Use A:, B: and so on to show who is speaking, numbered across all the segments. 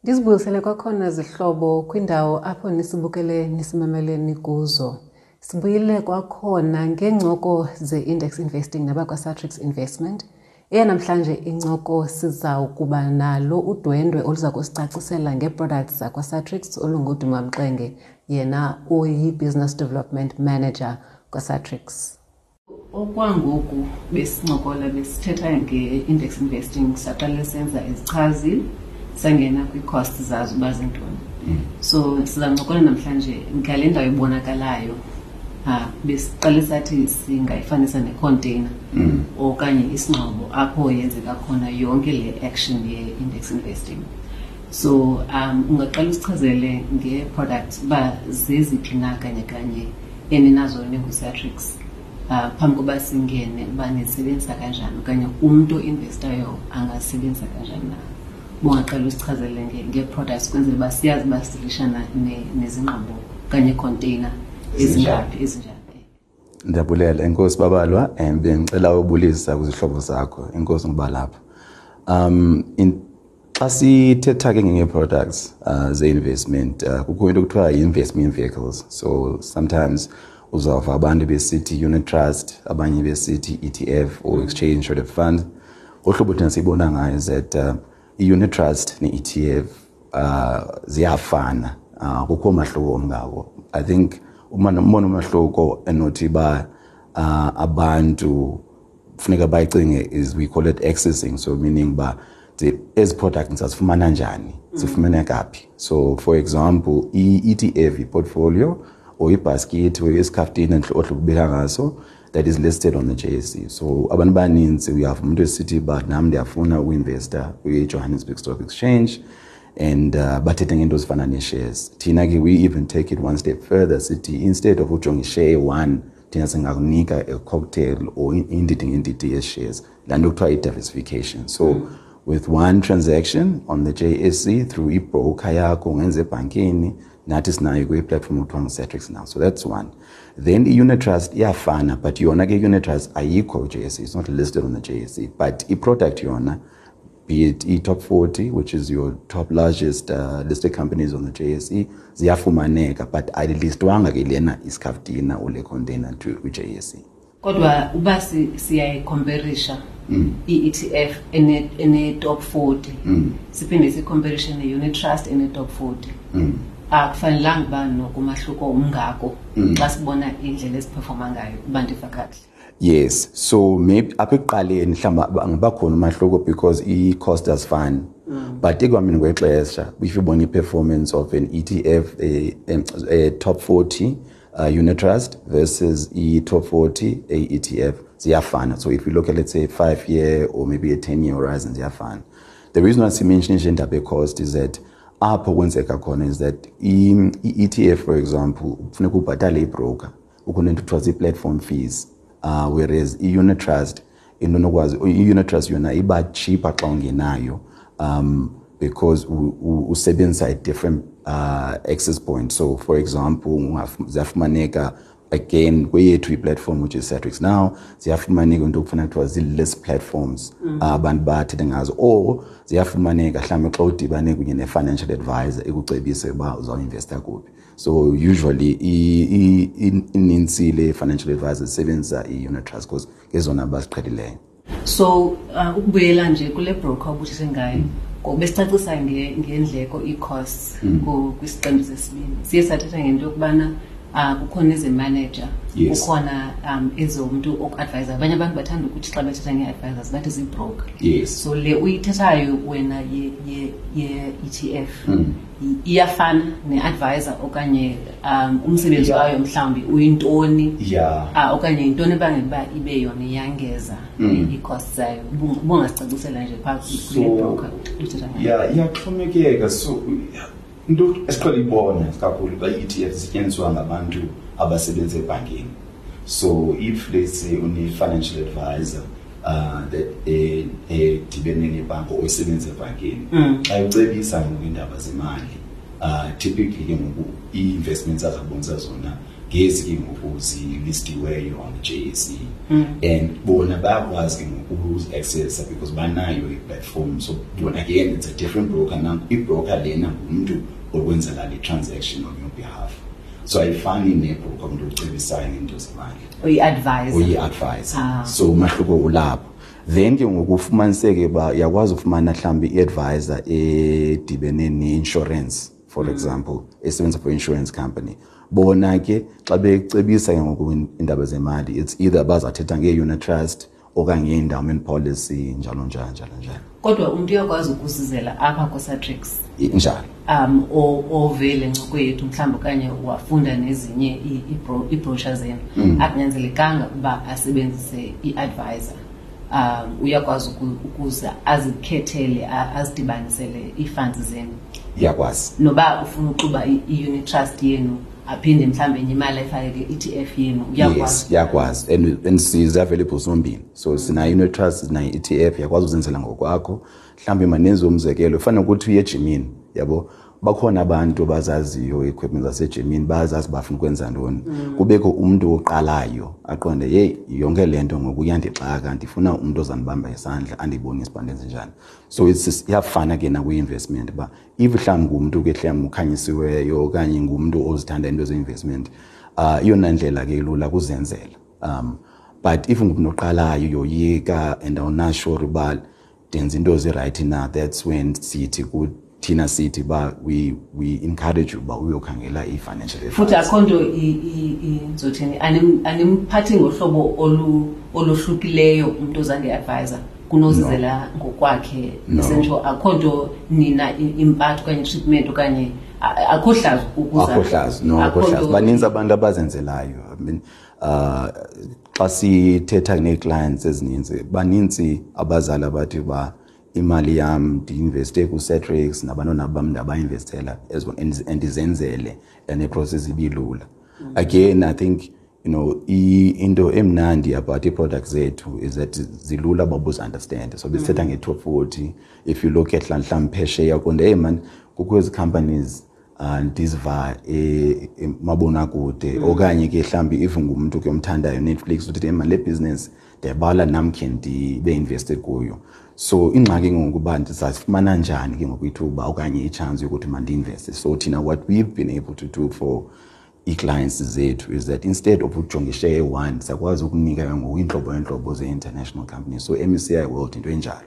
A: Ndizibuyisele kwakhona zihlobo kwindawo apho nisibukele nisimamele nikuzo. Sibuyile kwakhona ngeencoko ze-index investing nabakwaSatrix Investment. Eyanamhlanje incoko siza kuba nalo udwendwe oluza kusicacisela ngee-products zakwaSatrix olunguDuma Mxenge, yena uyi-Business Development Manager kwaSatrix. Okwangoku besincokola besithetha nge-index investing, saqale senza izichazi, sangena kwii-costs zazo uba zintoni. So sizancokola namhlanje ngale ndawo ibonakalayo. Besiqale sathi singayifanisa necontainer okanye isingxobo apho yenzeka khona yonke le action ye-index investing. So ungaqala usichazele ngee-products uba zeziphi na kanye kanye eninazo ninguSatrix, phambi koba singene uba nisebenzisa kanjani okanye umntu oinvestayo angasebenzisa kanjani na. Bungaqala usichazele ngee-products kwenzela uba siyazi uba sidilishana nezingxobo okanye iicontainer ezingaphi, ezinjani.
B: Ndiyabulela, enkosi Babalwa, and bengicela ubulisa kwizihlobo zakho. Enkosi ngokuba lapha. Xa sithetha ke ngee-products ze-investment, kukho into ekuthiwa yi-investment vehicles. So sometimes uzawuva abantu besithi unit trust, abanye besithi ETF or exchange traded fund. Ngohlobo thina siyibona ngayo is that i-unit trust ne-ETF ziyafana. Kukho umahluko omngako. I think umbono umahluko enothi ba abantu funeka bayicinge is we call it accessing, so meaning ba ezi products sazifumana njani, zifumaneka phi. So for example, i-ETF, i-portfolio or ibasket or isikhaftina ohlubeka ngaso that is listed on the JSE. So abantu baninzi uyava umuntu esithi ba nami ndiyafuna uinvesta kwi-Johannesburg Stock Exchange, and bathethe ngento ezifana nee-shares. Thina ke we even take it one step further, sithi instead of ujonga ishare one, thina singakunika a cocktail or indidi ngendidi ye-shares, laa nto kuthiwa i-diversification. So with one transaction on the JSE through i-broker yakho, ungenza ebhankini, nathi sinayo kwi-platform okuthiwa ngu-Satrix now. So that's one. Then i-unit trust iyafana, but yona ke i-unit trust ayikho ku-JSE, it's not listed on the JSE, but i-product yona, be it e-top 40, which is your top largest listed companies on the JSE, ziyafumaneka, but ayilistwanga ke lena isikhaftina or le container to kwi-JSE.
A: Kodwa uba siyayicomparisha i-ETF ene-top 40, siphinde sicomparishe ne-unit trust ene-top 40, akufanelanga uba nokumahluko umngako xa sibona indlela eziperforma ngayo, uba ndiva kakuhle?
B: Yes, so maybe apha ekuqaleni mhlawumbi angabakhona umahluko because i-cost azifani. But ekuhambeni kwexesha, if ubona i-performance of an ETF, a top 40 unit trust versus i-top 40 a ETF, ziyafana. So if you look at, let's say, 5-year or maybe a 10-year horizon, ziyafana. The reason why simention indaba ye-cost is that apho kwenzeka khona is that i-ETF, for example, kufuneka ubhatale ibroker, ukhona into kuthiwa zii-platform fees, whereas i-unit trust, into onokwazi, i-unit trust yona iba cheaper xa ungenayo, because usebenzisa a different access point. So for example, ziyafumaneka again kweyethu i-platform, which is Satrix Now, ziyafumaneka into okufana kuthiwa zii-list platforms, abantu bathethe ngazo, or ziyafumaneka mhlawumbi xa udibane kunye ne-financial advisor ekucebise uba uzawuinvesta kuphi. So usually inintsi le financial advisors zisebenzisa i-unit trust because ngezona baziqhelileyo.
A: So ukubuyela nje kule broker obuthethe ngayo, ngoku besicacisa ngendleko, ii-costs, kwisiqendu sesibini siye sathetha ngento yokubana kukhona eze-manager, kukhona ezomntu oku-advisa. Abanye abantu bathanda ukuthi xa bethetha ngee-advisors bathi zii-broker. So le uyithethayo wena ye-ETF iyafana ne-advisor okanye umsebenzi wayo mhlawumbi uyintoni? Okanye yintoni ebangela uba ibe yona iyangeza ii-costs zayo? Ubungasicacisela nje phaa kule broker uthetha ngayo.
B: Yeah, iyaxhomekeka. So into esiqhele ibona kakhulu xa i-ETF isetyenziswa ngabantu abasebenza ebhankini. So if, let's say, une-financial advisor that edibene nebhanki or isebenza ebhankini, xa ucebisa ngoku iindaba zemali, typically ke ngoku ii-investments azakubonisa zona. Ngezi ke ngoku zilistiweyo on the JSE and bona bayakwazi ke ngoku ukuzi-accessa because banayo i-platform. So bona again, it's a different broker. Now i-broker lena ngumntu okwenzela le transaction on your behalf, so ayifani nebroker, umntu ocebisayo ngento zemali.
A: Uyi-advisor.
B: Uyi-advisor.
A: Ah.
B: So umahluko ulapho. Then ke ngoku ufumaniseke uba uyakwazi ufumana mhlawumbi i-advisor edibene ne-insurance, for example, esebenza for insurance company. Bona ke xa becebisa ke ngoku iindaba zemali, it's either bazathetha ngee-unit trust okanye nge-endowment policy, njalo njalo njalo njalo.
A: Kodwa umntu uyakwazi ukusizela apha kuSatrix?
B: Njalo.
A: Ovele ncoko yethu mhlawumbi okanye wafunda nezinye iibrochure zenu, akunyanzelekanga ukuba asebenzise i-advisor. Uyakwazi ukuze azikhethele, azidibanisele ii-funds zenu.
B: Iyakwazi.
A: Noba ufuna uxuba i-unit trust yenu, aphinde mhlawumbi enye imali ayifake kwi-ETF yenu, uyakwazi.
B: Yes, iyakwazi, and sizi-available zombini. So sinayo i-unit trust, sinayo i-ETF. Uyakwazi uzenzela ngokwakho. Mhlawumbi manenze umzekelo, fana nokuthi uye ejimini, yabo, bakhona abantu abazaziyo i-equipment zasejimini, bayazazi bafuna ukwenza ntoni. Kubekho umntu oqalayo aqonde, "Yeyi, yonke le nto ngoku iyandixaka, ndifuna umntu ozandibamba isandla, andibonise uba ndenze njani." So iyafana ke nakwi-investment, uba if mhlawumbi ngumntu ke mhlawumbi ukhanyisiweyo okanye ngumntu ozithanda into ze-investment, iyona ndlela ke ilula kuzenzela. But if ngumntu oqalayo, uyoyika and awunasure uba ndenza into ezi-right na, that's when sithi thina sithi uba we encourage you uba uyokhangela i-financial advisor.
A: Futhi akho nto ndizothini, animphathi ngohlobo olohlukileyo umntu oza nge-advisor kunozizela ngokwakhe?
B: No.
A: Essential, akho nto nina impatho okanye treatment okanye akho hlazo ukuza?
B: Akho hlazo, no, akho
A: Akho
B: hlazo. Baninzi abantu abazenzelayo. I mean, xa sithetha nee-clients ezininzi, baninzi abazali abathi uba imali yam ndiinveste kuSatrix, nabantwana bam ndabainvestela as well, and ndizenzele, and iprocess ibilula. Again, I think into emnandi about ii-products zethu is that zilula uba ubuzi-understand. So besithetha nge-top 40. If you look at mhlawumbi phesheya, uqonde, "Hey man, kukho ezi companies ndiziva emabonakude," okanye ke mhlawumbi if ngumntu ke omthandayo Netflix, uthi, "Hey man, le business ndiyabala nam khe ndibe invested kuyo." So ingxaki ngoku uba ndizazifumana njani ke ngoku ithuba okanye i-chance yokuthi mandiinveste. So thina, what we've been able to do for ii-clients zethu is that instead of ujonga ishare eyi-one, siyakwazi ukunika ke ngoku iintlobo ngeentlobo ze-international companies. So MSCI World into enjalo,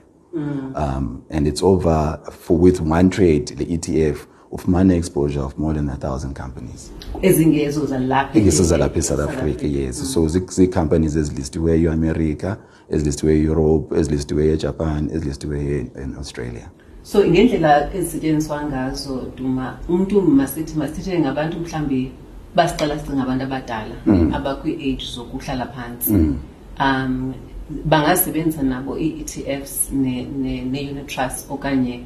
B: and it's over for with one trade, the ETF, ufumana exposure of more than 1,000 companies.
A: Ezingezo zalapha?
B: Ingezo zalapha eSouth Africa, yes. So zii-companies ezilistiweyo eAmerica, ezilistiweyo eEurope, ezilistiweyo eJapan, ezilistiweyo in Australia.
A: So ngendlela ezisetyenziswa ngazo, Duma, umntu masithi masithethe ngabantu mhlawumbi basiqala sicinga abantu abadala abakwi-age zokuhlala phantsi, bangasebenzisa nabo ii-ETFs ne-unit trust, okanye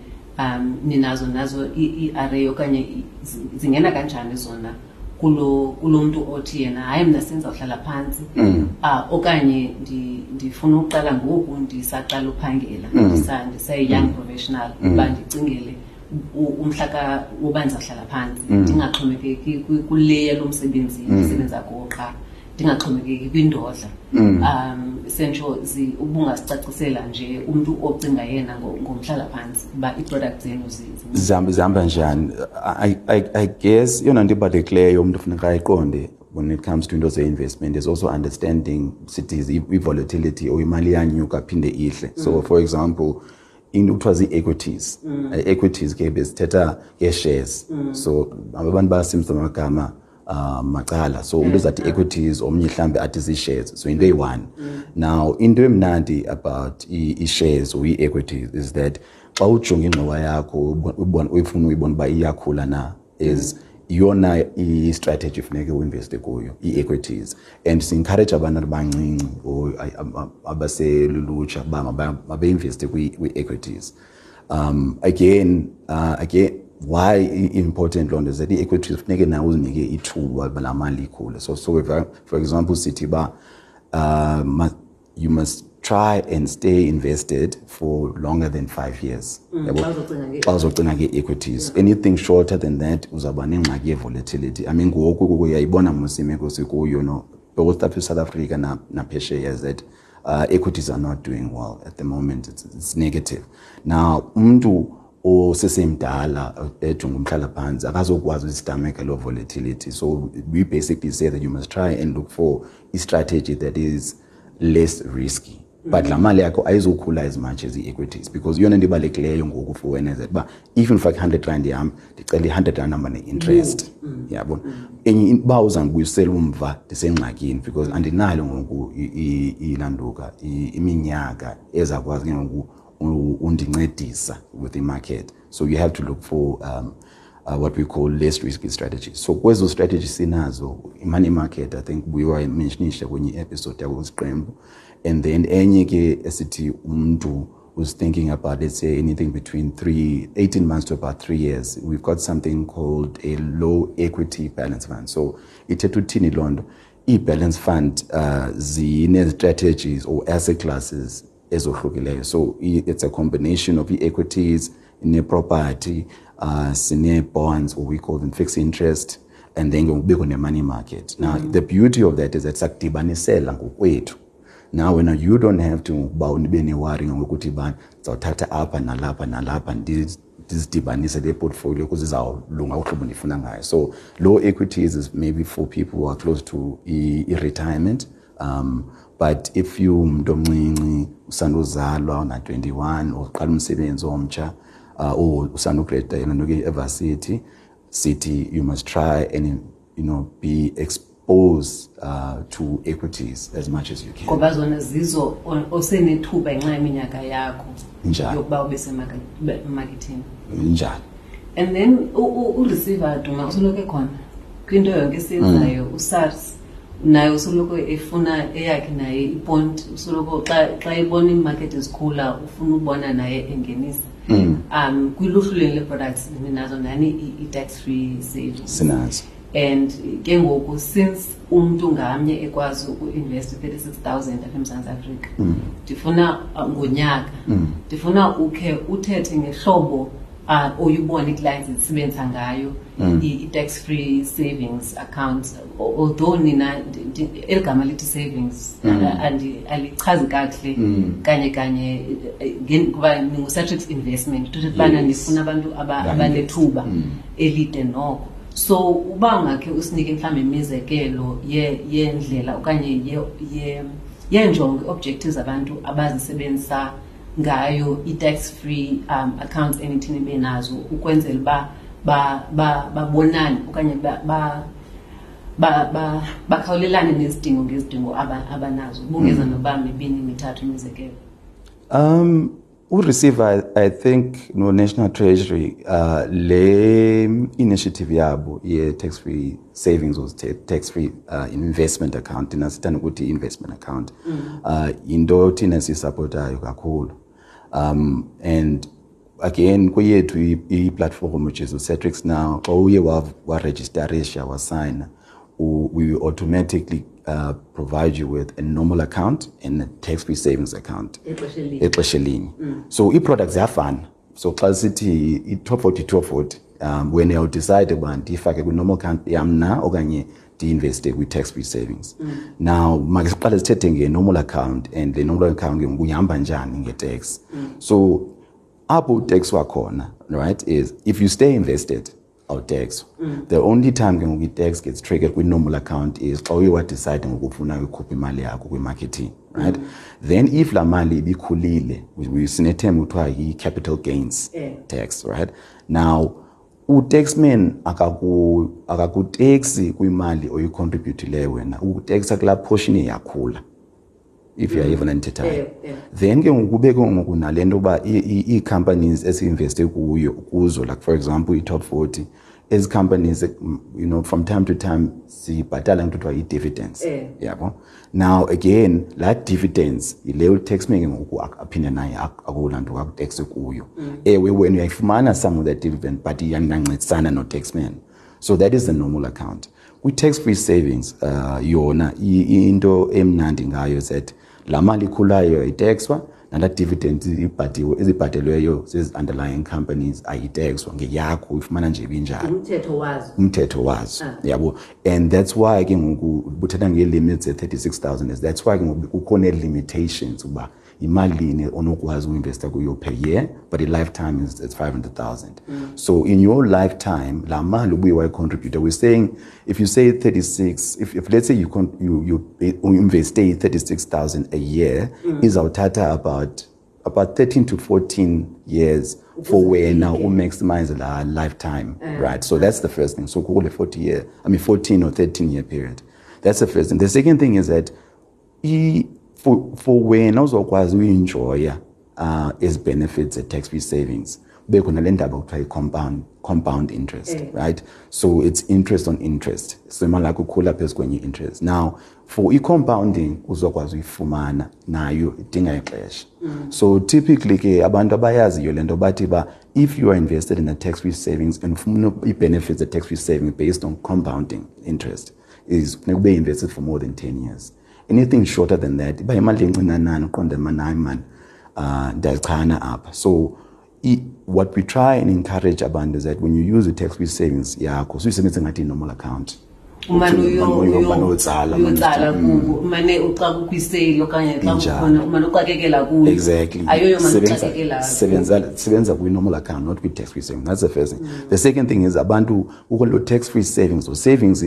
A: ninazo nazo i-array, okanye zingena kanjani zona kulo mntu othi yena, "Hayi, mna sendizawuhlala phantsi, okanye ndifuna ukuqala ngoku ndisaqala uphangela, ndiseyi-young professional, uba ndicingele umhla woba ndizawuhlala phantsi, ndingaxhomekeki kule yalo msebenzi ndisebenza kuwo qha, ndingaxhomekeki kwindodla"? Sentsho ubungasicacisela nje umntu ocinga yena ngomhlala phantsi uba ii-product zenu
B: Zihamba njani? I guess eyona nto ibalulekileyo umntu funeka ayiqonde when it comes to into ze-investment is also understanding sithi i-volatility, or imali iyanyuka phinde ihle. So for example, into kuthiwa zii-equities. Equities ke besithetha ngee-shares, so abantu bayasebenzisa amagama macala. So umntu uzathi equities, omnye mhlawumbi athi zii-shares, so into eyi-one. Now into emnandi about i-shares or ii-equities is that xa ujonga ingxowa yakho, uyifuna uyibona uba iyakhula na, is iyona i-strategy funeke uinveste kuyo, ii-equities. And si-encourage abantu abancinci or abaselulutsha uba mabeinveste kwii-equities. Again, why important loo nto is that ii-equities funeke nawe uzinike ithuba uba laa mali ikhule. So if, for example, sithi uba you must Try and stay invested for longer than 5 years. Yabo?
A: Xa uzocinga
B: Xa uzocinga ngee-equities, anything shorter than that uzawuba nengxaki ye-volatility. I mean, ngoku uyayibona mos imeko sikuyo, no, both apha eSouth Africa naphesheya, that equities are not doing well at the moment. It's negative now. Umntu osesemdala ejonga umhlala phantsi akazokwazi uzi-stomach-a loo volatility. So we basically say that you must try and look for a strategy that is less risky, but laa mali yakho ayizokhula as much as i-equities, because iyona nto ibalulekileyo ngoku for wena is that uba if ndifake i-R100 yam, ndicela i-R100 hamba ne-interest, yabona. Enye uba uzandibuyisela umva, ndisengxakini, because andinayo ngoku ilanduka iminyaka ezakwazi ke ngoku undincedisa with the market. So you have to look for what we call less risky strategies. So kwezo strategies sinazo i-money market, I think buye wayi-mention-isha kwenye i-episode yakwesiqembu. And then enye ke esithi umntu who's thinking about, let's say, anything between 18 months to about 3 years, we've got something called a low equity balance fund. So ithetha uthini loo nto? I-balance fund zine-strategies or asset classes ezohlukileyo. So it's a combination of i-equities, ne-property, sine-bonds, or we call them fixed interest, and then kubekho ne-money market. Now, the beauty of that is that sakudibanisela ngokwethu. Now wena you don't have to uba ube ne-worry ngokuthi bani ndizawuthatha apha nalapha nalapha, ndizidibanise le portfolio ukuze izawulunga uhlobo ndifuna ngayo. So low equities is maybe for people who are close to i-retirement, but if you umuntu omncinci usanduzalwa, una-21, uqala umsebenzi omtsha, or usandu-grad-a nto ke e-varsity, sithi you must try and be exposed to equities as much as you can.
A: Ngoba zona zizo osenethuba ngenxa yeminyaka yakho
B: Njalo.
A: Yokuba ube semakethini.
B: Njalo.
A: And then uReceiver Duma usoloko ekhona kwinto yonke esiyenzayo. USARS naye usoloko efuna eyakhe naye i-point, usoloko xa ebona iimakethi zikhula ufuna ubona naye engenisa. Kwiluhlu leni le-products ninazo nani i-tax free savings?
B: Sinazo.
A: And ke ngoku, since umntu ngamnye ekwazi uku-invest 36 000 apha eMzantsi Afrika, ndifuna ngonyaka, ndifuna ukhe uthethe ngehlobo oyubona ii-clients zisebenzisa ngayo i-tax free savings account, although nina eli gama lithi savings alichazi kakuhle kanye kanye, kuba ninguSatrix Investment, uthetha ubana nifuna abantu abanethuba elide noko. So uba ungakhe usinike mhlawumbi imizekelo yendlela okanye yeenjongo, objectives abantu abazisebenzisa ngayo i-tax free accounts enithini benazo, ukwenzela uba babonane okanye bakhawulelane nezidingo ngezidingo abanazo, bungeza noba mibini mithathu imizekelo.
B: Ureceiver, I think, no National Treasury, le initiative yabo ye tax-free savings or tax-free investment account, thina sithanda ukuthi investment account, into thina siyi-support-ayo kakhulu. And again, kweyethu i-platform, which is uSatrix Now, xa uye wa-register-isha, wasayina, we automatically provide you with a normal account and a tax-free savings account
A: Ixesha elinye.
B: Exesha elinye. So ii-products ziyafana. So xa sithi i-Top 40, Top 40, wena uyawu-decide uba ndiyifake kwi-normal account yam na okanye ndi-investe kwi-tax free savings. Now make siqale sithethe nge-normal account, and le normal account ke ngoku ihamba njani nge-tax. So apho u-tax wakhona, right, is if you stay invested, awu-tax. The only time ke ngoku i-tax gets triggered kwi-normal account is xa uye wa-decide ngokufuna ukhupha imali yakho kwi-marketing, right? Then if laa mali ibikhulile, sine-term kuthiwa yi-capital gains tax, right? Now utaxman akaku-taxi kwimali oyi-contribute-ileyo wena, uku-taxa kulaa portion yakhula, if uyayiva ndithethayo.
A: Yeah.
B: Then ke ngoku kube ke ngoku nale nto yoba ii-companies esi-investe kuyo kuzo, like for example i-Top 40, ezi companies, from time to time sibhatala into kuthiwa yi-dividends. Yabo. Now again, laa dividends yile utaxman ke ngoku aphinde naye akulanto aku-taxe kuyo. Ewe, wena uyayifumana some of that dividend, but iyangancedisana no-taxman. So that is the normal account. Kwi-tax free savings, yona into emnandi ngayo is that Laa mali ikhulayo ayitexwa, nalaa dividend ibhatiwe ezibhatelweyo zezi underlying companies ayitexwa, ngeyakho, uyifumana nje ibinjalo.
A: Umthetho wazo.
B: Umthetho wazo, yabo. And that's why ke ngoku buthetha ngee-limits ze-36,000. That's why ke ngoku kukho nee-limitations uba imalini onokwazi uinvesta kuyo per year, but i-lifetime is it's 500,000. So in your lifetime, laa mali ubuye wayicontributa, we're saying if you say 36, if let's say you investe 36,000 a year, izawuthatha about 13 to 14 years for wena umaximize la lifetime, right? So that's the first thing. So kule 40 year, I mean 14 or 13 year period. That's the first thing. The second thing is that for wena uzokwazi uyenjoya ezi benefits tax free savings, kube khona le ndaba kuthiwa i-compound interest, right? So it's interest on interest, so imali yakho ikhula phezu kwenye interest. Now for i-compounding uzokwazi uyifumana nayo idinga ixesha. So typically ke abantu abayaziyo le nto bathi ba if you are invested in a tax free savings and ufuna i-benefits tax free saving based on compounding interest, is kufuneka ube invested for more than 10 years. Anything shorter than that, iba imali encinanana, uqonde mani, hayi mani, ndiyazichana apha. So what we try and encourage abantu is that when you use the tax free savings yakho, suyisebenzise ngathi i-normal account.
A: Umane
B: Umane uyotsala, umane
A: uyotsala kubo, umane uxa kukho isale okanye xa
B: Injalo.
A: kukhona, umane uxakekela kuyo.
B: Exactly.
A: Ayoyo mane
B: Sebenza
A: uxakekela kuyo.
B: sebenza kwi-normal account, not kwi-tax free savings. That's the first thing. The second thing is abantu kukho lo tax free savings. So savings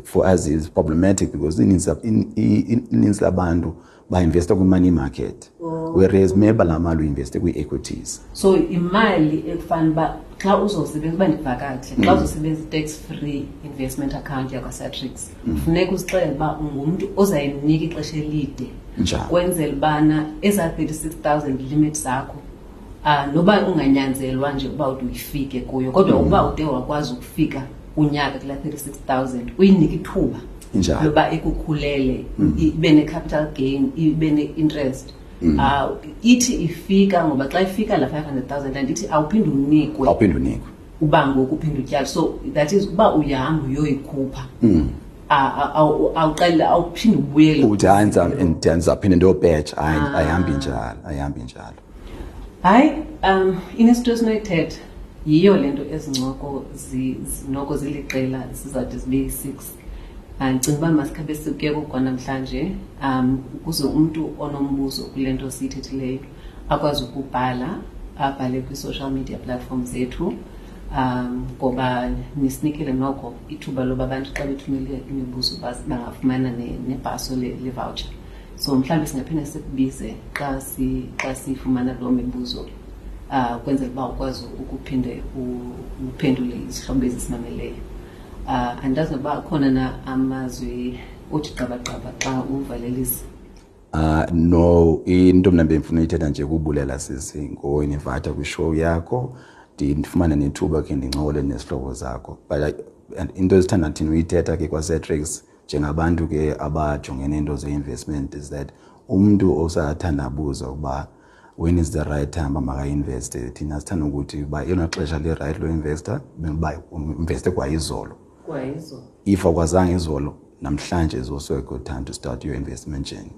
B: for us is problematic because ininzi labantu ba-investa kwi-money market. Whereas maybe laa mali uinveste kwii-equities.
A: So imali ekufana uba xa uzosebenza, uba ndiva kakuhle, xa uzosebenza i-tax free investment account yakwaSatrix, funeka uzixelele uba ungumntu ozayinika ixesha elide.
B: Njalo.
A: Kwenzela ubana ezaa 36,000 limit zakho, noba unganyanzelwa nje uba ude uyifike kuyo, kodwa uba ude wakwazi ukufika unyaka kulaa 36,000, uyinike ithuba
B: Injalo.
A: loba ikukhulele, ibe ne-capital gain, ibe ne-interest. Ithi ifika, ngoba xa ifika la 500,000, andithi awuphinde unikwe.
B: Awuphinde unikwe.
A: Uba ngoku uphinde utyale. So that is uba uyahamba uyoyikhupha. Awuqale, awuphinde ubuyele.
B: Uthi, hayi, ndizawuphinde ndiyopetsha. Hayi, ayihambi njalo, ayihambi njalo.
A: Hayi, inesito esinoyithetha yiyo le nto ezincoko noko ziliqela zizawude zibe yi-6. Ndicinga uba masikhabe sikuyeka kwanamhlanje, ukuze umntu onombuzo kule nto siyithethileyo akwazi ukubhala, abhale kwi-social media platform zethu, ngoba nisinikele noko ithuba loba abantu xa bethumele imibuzo bangafumana nebhaso le voucher. So mhlawumbi singaphinde sikubize xa sifumana loo mibuzo, kwenzela uba ukwazi ukuphinde uphendule izihlobo ezisimameleyo. Andazi noba akhona na amazwi othi gqabagqaba xa uvalelisa.
B: No, into mna bendifuna uyithetha nje kubulela sisi ngoyinivata kwishow yakho, ndifumane nethuba ke ndincokole nezihlobo zakho. But and into esithanda thina uyithetha ke kwaSatrix njengabantu ke abajongene neento ze-investment is that umntu osathandabuza ukuba when is the right time uba makainveste, thina sithanda ukuthi uba elona xesha li-right loinvesta uba uinveste kwa izolo.
A: Kwa izolo.
B: If akwazanga izolo, namhlanje is also a good time to start your investment journey.